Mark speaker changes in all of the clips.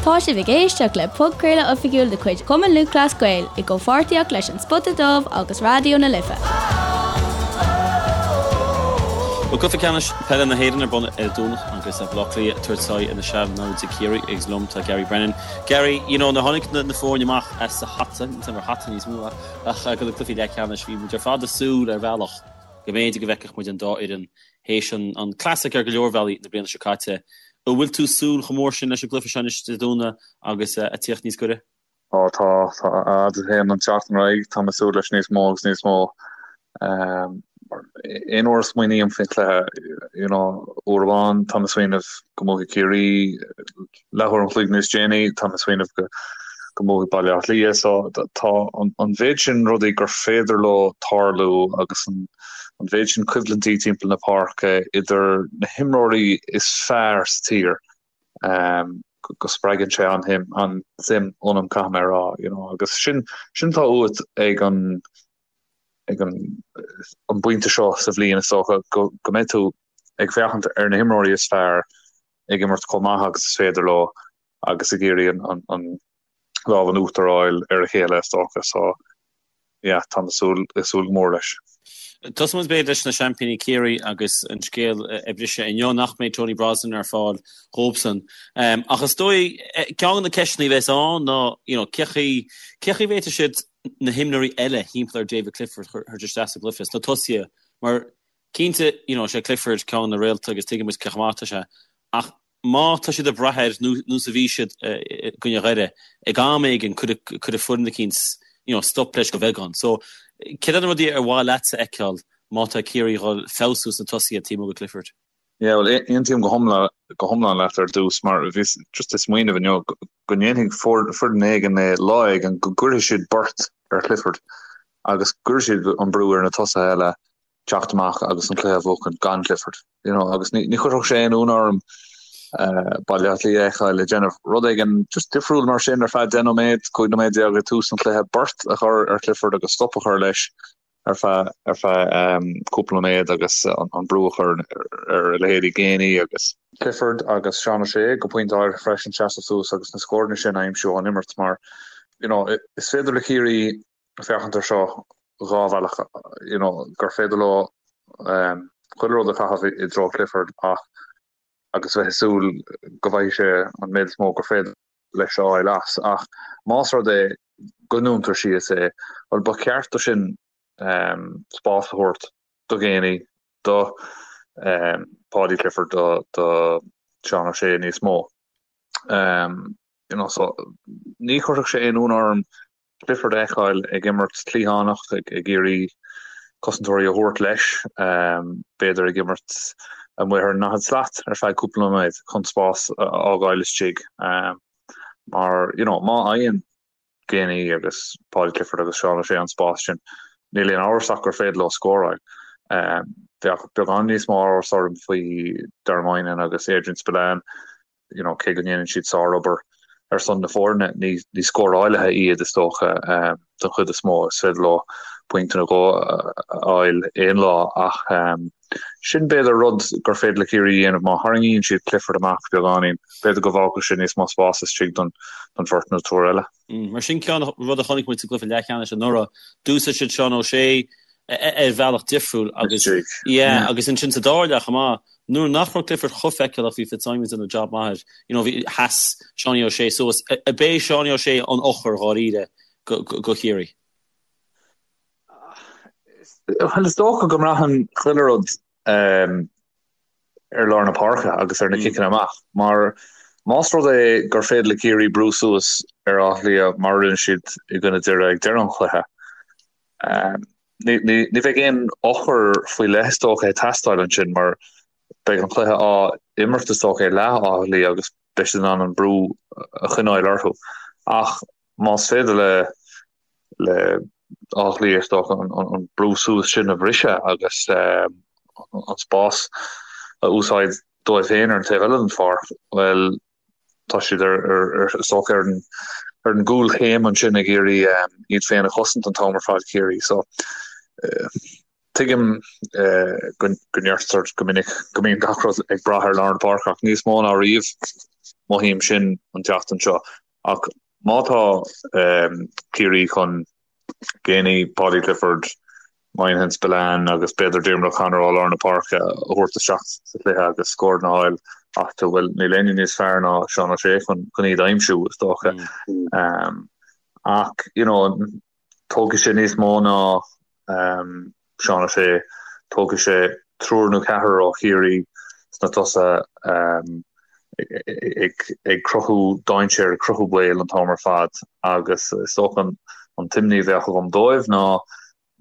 Speaker 1: Tá sibh ag éisteacht le podchraoladh oifigiúil de chuid Chumann Lúthchleas Gael i gcomhpháirtíocht leis An Spota Dubh agus Raidió na Life.
Speaker 2: Bhuel, Cluiche Ceannais Peile na hÉireann ar bun ar an Domhnach agus Baile Átha Cliath ag tabhairt aghaidh ar na sean-naimhde Ciarraí agus liom tá Gary Brennan. Gary, you know, nuair a tháinig na foirne amach as a hata, níl 'fhios a'm ar hata níos mó ach do na cluichí leathcheannais, bhí muid ar fad ag súil ar bhealach go mb'fhéidir go bhfeicfeadh muid an dá fhoireann théis an classic ar go leor bealaí na bliana seo caite. An bhfuil tú ag súil chomh mór sin leis an gcluiche seo anois Dé Domhnaigh agus ag tíocht níos gaire?
Speaker 3: Ó tá, tá, a fhad a théann an tseachtain ar aghaidh, tá mé ag súil leis níos mó agus níos mó. Aon uair a smaoiním faoin chluiche, you know, uair amháin tá mé ag smaoineamh go mbuafaidh Ciarraí, leathuair an chloig níos déanaí tá mé ag smaoineamh go go mbuafaidh Baile Átha Cliath. So tá an mhéid sin rudaí gur féidir leo tarlú agus an an mhéid sin coimhlintí timpeall na páirce idir na himreoirí is fearr sa tír go spreagann sé an-shuim an-suim ionam caithfidh mé a rá you know agus sin sin atá uait ag an ag an an bpointe seo sa bhliain is dócha go go mbeidh tú ag féachaint ar na himreoirí is fearr ag imirt chomh maith agus is féidir leo agus ag iarraidh an an an lámh in uachtar a fháil ar a chéile is dócha so yeah tá mé súil ag súil go mór leis.
Speaker 2: Tosóidh muid b'fhéidir leis na seaimpíní Ciarraí agus an scéal a briseadh inniu nach mbeidh Tony Brosnan ar fáil dhóibhsan. Ach is dóigh ceann de na ceisteanna a bheas ann ná you know cé chaoi cé chaoi a bhféadfaidh siad na himreoirí eile thimpeall ar David Clifford a chur isteach sa gcluiche sna tosaithe mar cinnte you know sé Clifford ceann de na réalta agus tuigeann muid cé chomh maith atá sé ach má tá siad ag brath air nós a bhí siad i gcoinne Dhoire, ag am éigin cuirfidh foireann eicínt you know stop leis go bheagán. So céard iad na rudaí ar mhaith leatsa a fheiceáil má tá Ciarraí ag dul feabhsú sna tosaithe taobh amuigh de Clifford?
Speaker 3: Yeah, well aontaím go hiomlán go hiomlán leat ar dtús mar bhíos just ag smaoineamh inniu go ndéanfaidh foireann éigin é lá éigin go gcuirfidh siad beirt ar Clifford agus gcuirfidh siad an brú ar na tosaithe eile teacht amach agus an cluiche a bhuachan gan Clifford. You know, agus ní, ní chuirfeadh sé aon ionadh orm uh, Baile Átha Cliath a fheiceáil ag déanamh rud éigin just difriúil mar sin ar feadh 10 nóiméad, 15 nóiméad ag tús an chluiche beirt a chur ar Clifford agus stop a chur leis ar feadh ar feadh um, cúpla nóiméad agus an, an brú a chur ar, ar a leithéidí Geaney agus Clifford agus Seán O'Shea go pointe áirithe freisin seasamh suas agus na scóranna sin a aimsiú ón imirt mar you know, is féidir le Ciarraí féachaint ar seo dhá bhealach, you know, gur féidir leo chuile rud a chaitheamh i dtreo Clifford ach agus bheith ag súil go bhfaighidh sé an méid is mó gur féidir leis a fháil as. Ach más rud é go ndúntar síos é, bhuel ba cheart do sin spás a thabhairt do Geaney, do Paudie Clifford, do do Seán O'Shea níos mó. You know, so ní chuirfeadh sé aon ionadh orm Clifford a fheiceáil ag imirt cliathánach, ag iarraidh cosantóirí a thabhairt leis, b'fhéidir ag imirt amuigh ar an ndaichead slat ar feadh cúpla nóiméad chun spás a fhágáil istigh. Mar, you know, má fhaigheann Geaney agus Paudie Clifford agus Seán O'Shea an spás sin, níl aon amhras ach gur féidir leo scóráil. Bheadh beagán níos mó amhras orm faoi Dara Moynihan agus Adrian Spillane. you know, cé go ndéanann siad sárobair ar son na foirne, ní, ní scórálaithe iad is dócha um, don chuid is mó, is féidir leo pointe nó dhó a fháil aon lá ach um, sin b'fhéidir rud gur féidir le Ciarraí a dhéanamh má tharraingíonn siad Clifford amach beagáinín, b'fhéidir go bhfágfadh sé níos mó spás istigh don, don bheirt nó triúr eile.
Speaker 2: Mm, mar sin ceann rud a chonaic muid sa gcluiche leathcheannais anuraidh, d'úsáid siad Seán O'Shea ar bhealach difriúil agus yeah, agus ansin sa dara leath chomh maith, nuair nach raibh Clifford chomh feiceálach bhí Fitzsimons ag déanamh job maith air, you know, bhí sheas Seánie O'Shea suas, ab é Seánie O'Shea an eochair dháiríre go, go, go Chiarraí?
Speaker 3: Well, is dócha go mbraitheann chuile rud um, ar lár na páirce agus ar na ciceanna amach, mar más rud é gur féidir le Ciarraí brú suas ar Áth Cliath mar a rinne siad i gcoinne Doire ag deireadh an chluiche, ní bheidh aon eochair faoi leith is dócha ag teastáil ansin mar beidh an cluiche á imirt is dócha i leath Átha Cliath agus beidh siad in ann an brú a choinneáil orthu. Ach más féidir le le Áth Cliath is dócha an brú suas sin a bhriseadh agus an spás a úsáid dóibh féin ar an taobh eile den pháirc, bhuel, tá siad ar is dócha ar an ar an gcúlchéim ansin ag iarraidh iad féin a chosaint an t-am ar fad Ciarraí. So tuigim go go ndeirtear go minic go mbíonn gach rud ag brath ar lár na páirce ach níos mó ná riamh. Mothaím sin an tseachtain seo. Ach má tá Ciarraí chun Geaney, Paudie Clifford, Moynihan Spillane agus b'fhéidir Diarmuid O'Connor ó lár na páirce a thabhairt isteach sa chluiche agus scóranna a fháil astu, bhuel, níl éinne níos fearr ná Seán O'Shea chun iad a aimsiú, is dócha. Ach, you know, tógfaidh sé níos mó ná Seán O'Shea, tógfaidh sé triúr nó ceathrar ó Chiarraí sna tosaithe ag cruthú dainséir, ag cruthú baol an t-am ar fad agus is dócha an t-imní a bheadh agam dóibh ná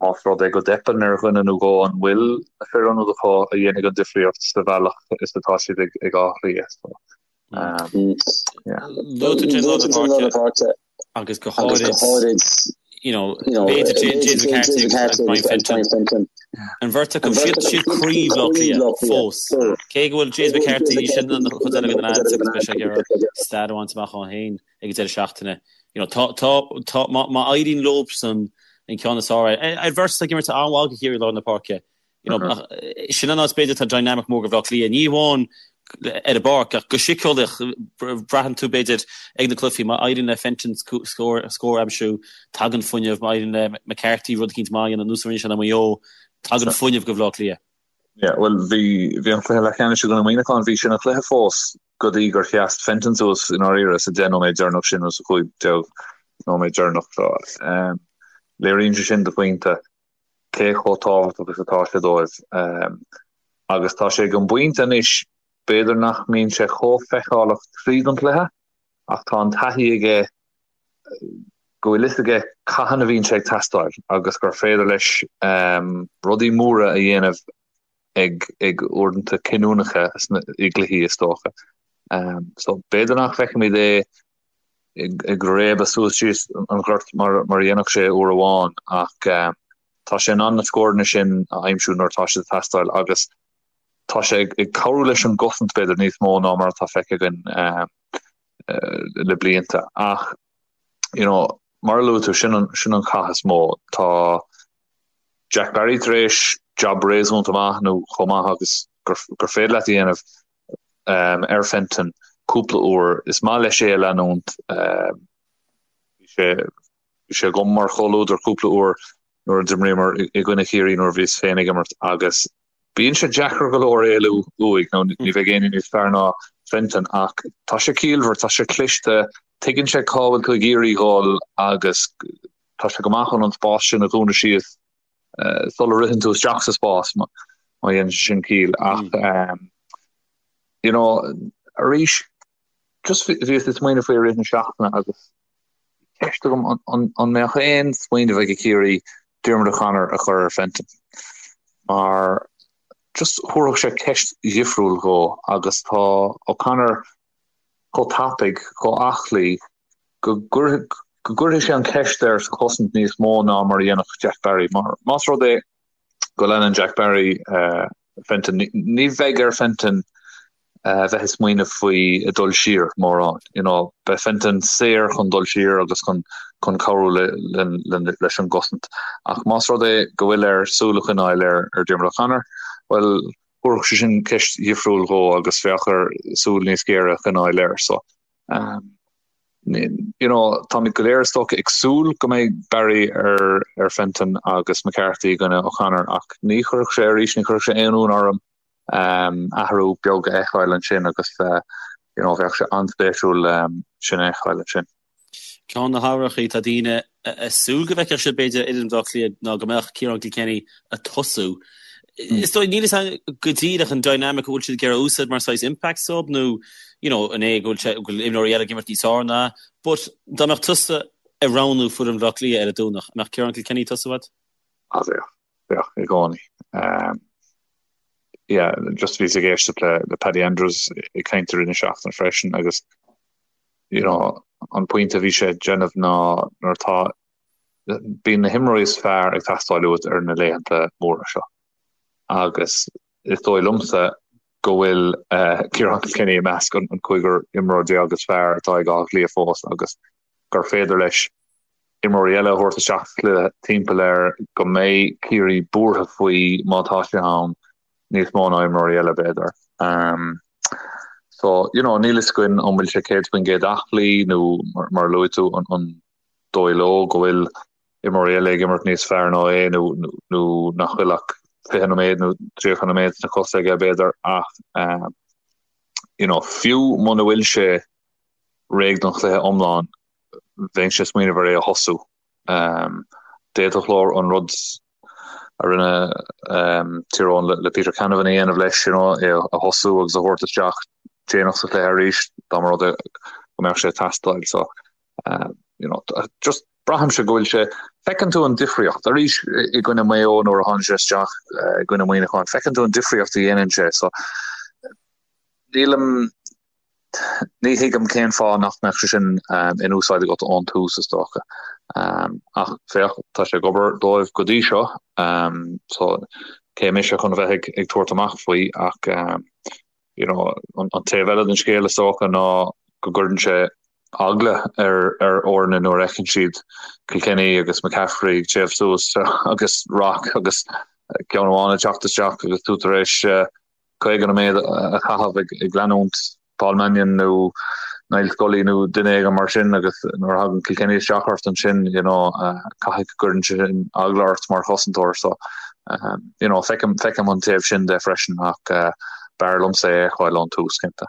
Speaker 3: más rud é go dteipeann ar dhuine nó dhó an bhfuil na fir ionaid acu a dhéanfaidh an difríocht sa bhealach is atá siad ag Áth Cliath.
Speaker 2: Luaigh tú lár na páirce agus go háirid you know, b'fhéidir James McCarthy agus Brian Fenton. An bheirt acu, siad siad croí Bhaile Átha Cliath fós. Cé go bhfuil James McCarthy sin an chuid eile den lads agus beidh sé ag iarraidh stad a bhaint amach dhó féin ag an deireadh seachtaine. You know, tá, tá, tá, má, má éiríonn leobsan an ceann is fearr, ar bheirt ag imirt an-mhaith do Chiarraí lár na páirce. You know, ach sin an áit b'fhéidir tá dynamic mór do Bhaile Átha Cliath. Ní amháin ar an bpáirc ach go síceolaíoch braitheann tú b'fhéidir ag na cluichí má éiríonn le Fenton scór a aimsiú, tagann fuinneamh, má éiríonn le McCarthy rud eicínt maith a dhéanamh nós a rinne sé in Maigh Eo, tagann fuinneamh go Bhaile Átha Cliath.
Speaker 3: Yeah, bhuel bhí bhí an cluiche leathcheannais i gcoinne Muineacháin, bhí sin an cluiche fós go dtí gur sheas Fenton suas i ndáiríre sa 10 nóiméad deireanach sin nó sa 15 nóiméad deireanach. So, um, léiríonn sé sin do phointe cé chomh tábhachtach is atá sé dóibh. Agus tá sé ag an bpointe anois, b'fhéidir nach mbíonn sé chomh feiceálach tríd an chluiche, ach tá an taithí aige go bhfuil fhios aige cathain a bhíonn sé ag teastáil agus gur féidir leis rudaí móra a dhéanamh ag ag uaireanta cinniúnacha i gcluichí is dócha. So b'fhéidir nach bhfeicfimid é ag réabadh suas síos an gort mar a dhéanfadh sé uair amháin ach tá sé in ann na scóranna sin a aimsiú nuair atá siad ag teastáil agus tá sé ag cabhrú leis an gcosaint b'fhéidir níos mó ná mar atá feicthe againn le blianta. Ach you know, mar a luaigh tú, sin an, sin an cath is mó. Tá Jack Barry tar éis jab réasúnta maith nó chomh maith agus gur, gur féidir leat a dhéanamh ar Fenton cúpla uair. Is maith leis é a leanúint. Bhí sé bhí sé agam mar chomhluadar cúpla uair nuair a d'imríomar i gcoinne Chiarraí nuair a bhíos féin ag imirt agus bíonn sé deacair go leor éalú uaidh nó ní bheidh éinne níos fearr ná Fenton ach tá sé ciallmhar, tá sé cliste, tuigeann sé cá bhfuil tú ag iarraidh dhul agus tá sé go maith chun an spás sin a dhúnadh síos sula ritheann tú isteach sa spás má dhéanann sé sin ciall ach you know arís just bhíos ag smaoineamh faoi i rith na seachtaine agus ceist agam an mbeadh aon smaoineamh ag Ciarraí Diarmuid O'Connor a chur ar Fenton mar just thabharfadh sé ceist dhifriúil dhó agus tá O'Connor chomh tapaidh, chomh aclaí go gcuirfidh sé an cheist air sa chosaint níos mó ná mar a dhéanfadh Jack Barry. Mar más rud é go leanann Jack Barry Fenton, ní bheidh ar Fenton bheith ag smaoineamh faoi ag dul siar mórán. You know, beidh Fenton saor chun dul siar agus chun chun cabhrú le, le, le, leis an gcosaint. Ach más rud é go bhfuil air súil a choinneáil ar, ar Diarmuid O'Connor, bhuel, thabharfadh sé sin ceist dhifriúil dhó agus bheadh air súil níos géire a choinneáil air. So, um, you know, táimid go léir is dócha ag súil go mbeidh Barry ar, ar Fenton agus McCarthy i gcoinne O'Connor ach ní chuirfeadh sé arís, ní chuirfeadh sé aon ionadh orm um, athrú beag a fheiceáil ansin agus uh, you know, bheadh sé an-spéisiúil um, sin a fheiceáil ansin.
Speaker 2: Ceann de na hathruithe atá daoine ag súil go bhfeicfeadh siad b'fhéidir ar fhoireann Bhaile Átha Cliath ná go mbeadh Ciarán Kilkenny ag tosú. Is dóigh, níl fhios agam go díreach an dynamic a bhfuil siad ag iarraidh a úsáid mar saghas impact sub nó you know an é go bhfuil sé go bhfuil imreoirí eile ag imirt níos fearr ná but dá mbeadh tusa ag roghnú foireann Bhaile Átha Cliath ar an Domhnach, an mbeadh Ciarán Kilkenny ag tosú agat?
Speaker 3: Ah bheadh, bheadh i gcónaí. Um, yeah, just bhíos ag éisteacht le, le Paddy Andrews ag caint i rith na seachtaine freisin agus you know, an pointe a bhí sé ag déanamh ná nuair atá bíonn na himreoirí is fearr ag teastáil uait ar na laethanta móra seo. Agus is dóigh liomsa go bhfuil uh, Ciarán Kilkenny i measc an, an cúigear imreoir déag is fearr atá ag Áth Cliath fós agus gur féidir leis imreoirí eile a thabhairt isteach sa chluiche timpeall air go mbeidh Ciarraí buartha faoi má tá sé ann níos mó ná imreoirí eile b'fhéidir. Um, So, you know, níl fhios againn an bhfuil sé 100% aclaí nó mar a luaigh tú an dóigh leo go bhfuil imreoirí eile ag imirt níos fearr ná é nó nó nach bhfuil ach 20 nóiméad nó 30 nóiméad sna cosa aige b'fhéidir ach you know, fiú muna bhfuil sé réidh don chluiche iomlán bheinnse ag smaoineamh ar é a thosú. D'fhéadfadh leo an rud a rinne Tír Eoghain le Peter Canavan a dhéanamh leis, you know, é a thosú agus a thabhairt isteach déanach sa chluiche arís dá mba rud é go mbeadh sé ag teastáil. So, you know, just braithimse go bhfuil sé, feiceann tú an difríocht arís i gcoinne Maigh Eo nuair a tháinig sé isteach i gcoinne Muineacháin, feiceann tú an difríocht a dhéanann sé. So, nílim Ní thuigim cén fáth nach mbeadh sé sin in úsáid agat ón tús, is dócha. Ach féach, tá sé ag obair dóibh go dtí seo, so cé mise chun a bheith ag tabhairt amach faoi ach you know, an taobh eile den scéal is dócha ná go gcuireann sé eagla ar ar fhoirne nuair a fheiceann siad Kilkenny agus McCaffrey ag téamh suas agus Rock agus ceann amháin ag teacht isteach agus tú tar éis 50 nóiméad a chaitheamh ag leanúint Paul Mannion nó Niall Scully nó duine éigin mar sin agus nuair a thagann Kilkenny isteach ort ansin you know caithfidh go gcuireann sé sin eagla ort mar chosantóir so you know feicim feicim an taobh sin de freisin ach b'fhearr liomsa é a fheiceáil ón tús cinnte.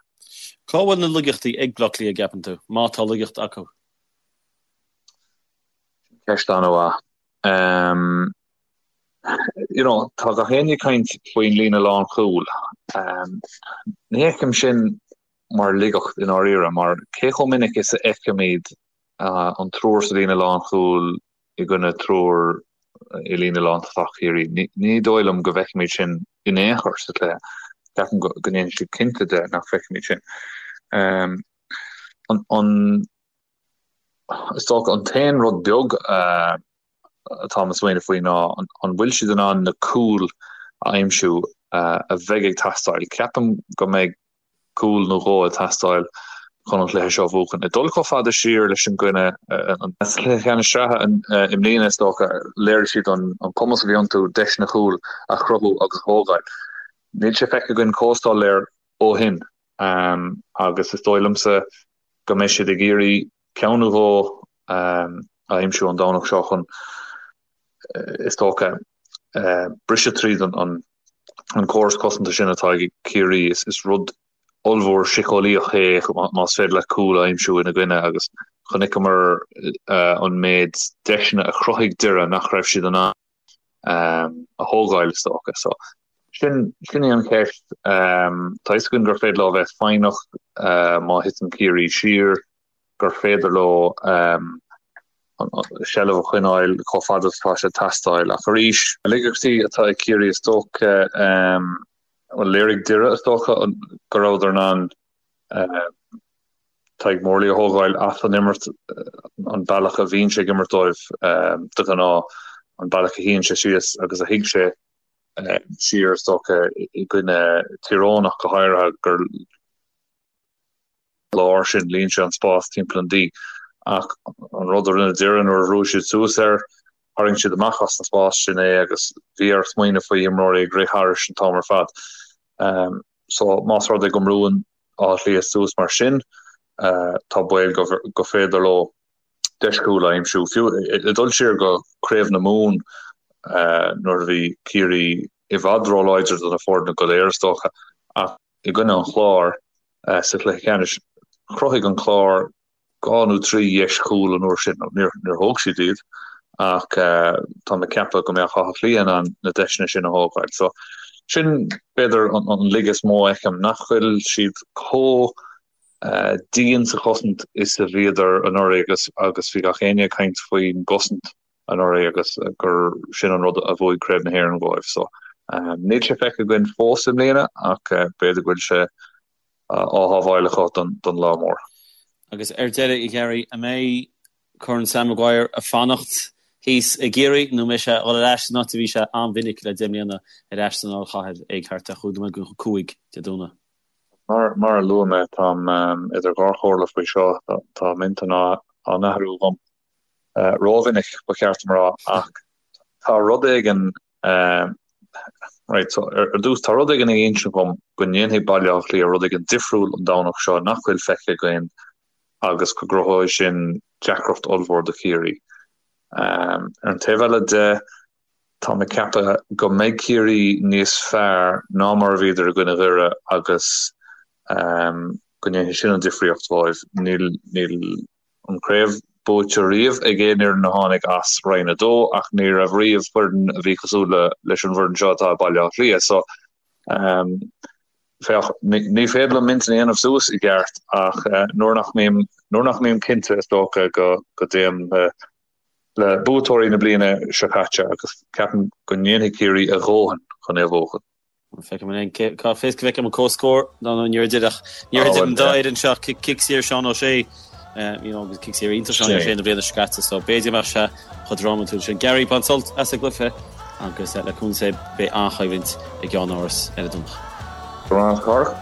Speaker 2: Cá bhfuil na laigeachtaí ag Bleá Cliath, an gceapann tú, má tá laigeacht acu?
Speaker 3: Ceist an-mhaith. Um, you know, tá gach éinne ag caint faoin líne lánchúil. Um, ní fheicim sin mar laigeacht i ndáiríre, mar cé chomh minic is a fheicimid uh, an triúr sa líne lánchúil i gcoinne triúr i líne lántosach Chiarraí. Ní, ní dóigh liom go bhfeicimid sin in aon chor sa chluiche. Ceapaim go, go ndéanfaidh siad cinnte de nach bhfeicimid sin. Um, an, an, Is dócha an t-aon rud beag atáim ag smaoineamh faoi ná an bhfuil siad in ann na cúil a aimsiú a bheidh ag teastáil. Ceapaim go mbeidh cúl nó dhó ag teastáil chun an cluiche seo a bhuachan. Ag dul chomh fada siar leis an gcoinne sa chluiche ceannais sraithe i mbliana is dócha, léirigh siad an cumas a bhí iontu deiseanna cúil a chruthú agus a thógáil. Níl sé feicthe againn chomh soiléir ó shin agus is dóigh liomsa go mbeidh siad ag iarraidh ceann nó dhó a aimsiú an Domhnach seo chun, is dócha, briseadh tríd an córas cosanta sin atá ag Ciarraí. Is rud ollmhór síceolaíoch é más féidir leat cúl a aimsiú ina gcoinne agus chonaiceamar an méid deiseanna a chruthaigh Doire nach raibh siad in ann a thógáil, is dócha. So, sin, sin í an cheist. Tá fhios againn gur féidir leo a bheith foighneach má thiteann Ciarraí siar, gur féidir leo seilbh a choinneáil chomh fada is atá sé ag teastáil. Ach arís, na laigeachtaí atá ag Ciarraí is dócha, bhuel, léirigh Doire, is dócha, go rabhadar in ann Tadhg Morley a thógáil as an imirt, an bealach a bhíonn sé ag imirt dóibh de ghnáth, an bealach a shuíonn sé síos agus a shuigh sé siar, is dócha, i gcoinne Tír Eoghain ach go háirithe, gur lár sin, líon sé an spás timpeall an D. Ach an rud a rinne Doire nuair a bhrúigh siad suas air, tharraing siad amach as an spás sin é agus bhí air smaoineamh faoi imreoirí ag rith thairis an t-am ar fad. So más rud é go mbrúann Áth Cliath suas mar sin, tá baol go féidir leo deis chúil a aimsiú. Fiú ag dul siar go Craobh na Mumhan nuair a bhí Ciarraí i bhfad róláidir do na foirne go léir is dócha, ach i gcoinne an Chláir sa chluiche ceannais, chruthaigh an Clár 2 nó 3 dheis chúil an uair sin. Níor thóg siad iad ach tá mé ag ceapadh go mbeadh Áth Cliath in ann na deiseanna sin a thógáil. So sin b'fhéidir an laige is mó a fheicim, nach bhfuil siad chomh dian sa chosaint is a bhíodar anuraidh agus agus bhí gach éinne ag caint faoin gcosaint anuraidh agus gur sin an rud a bhuaigh Craobh na hÉireann dhóibh. So níl sé feicthe againn fós i mbliana ach b'fhéidir go bhfuil sé á shábháil acu don lá mór.
Speaker 2: Agus ar deireadh, a Ghearaí, an mbeidh Corn Sam Maguire ag fanacht thíos i gCiarraí nó an mbeidh sé ag dul ar ais san áit a bhí sé an-mhinic le 10 mbliana, ar ais san Ollchathair ag thart ar chúig nóiméad go 5 Dé Domhnaigh?
Speaker 3: Mar mar a luaigh mé, táim idir dhá chomhairle faoi seo, tá m'intinn á n-athrú agam rómhinic, ba cheart dom a rá, ach tá rud éigin. Right, so ar dtús tá rud éigin ag insint dhom go ndéanfaidh Baile Átha Cliath rud éigin difriúil an Domhnach seo nach bhfuil feicthe againn agus go gcruthóidh sin deacracht ollmhór do Chiarraí. Ar an taobh eile de, tá mé ag ceapadh go mbeidh Ciarraí níos fearr ná mar a bhíodar i gcoinne Dhoire agus go ndéanfaidh sin an difríocht dóibh. Níl, níl. an chraobh buaite riamh ag aon fhoireann a tháinig as Roinn 2 ach ní raibh riamh foireann a bhí cosúil le leis an bhfoireann seo atá ag Baile Átha Cliath. So féach, ní féidir liom m'intinn a dhéanamh suas i gceart ach nuair nach mbím nuair nach mbím cinnte is dócha go go dtéim le le buaiteoirí na bliana seo caite agus ceapaim go ndéanfaidh Ciarraí a dhóthain chun é a bhuachan.
Speaker 2: Feicim an cá bhfios go bhfeicim an comhscór ná nó níor idir níor idir an dá fhoireann seo cic saor Seán O'Shea you know, agus cic saor iontach Seán O'Shea na bliana seo caite so b'fhéidir go mbeadh sé chomh drámatúil sin. Gary bain sult as an gcluiche agus le cúnamh Dé beidh an-choimhlint i gceannáras ar an Domhnach.
Speaker 3: Go raibh maith agat a Chárthach.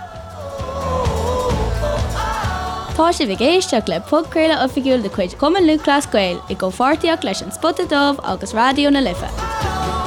Speaker 1: Tá sibh ag éisteacht le podchraoladh oifigiúil de chuid Chumann Lúthchleas Gael i gcomhpháirtíocht leis An Spota Dubh agus Raidió na Life.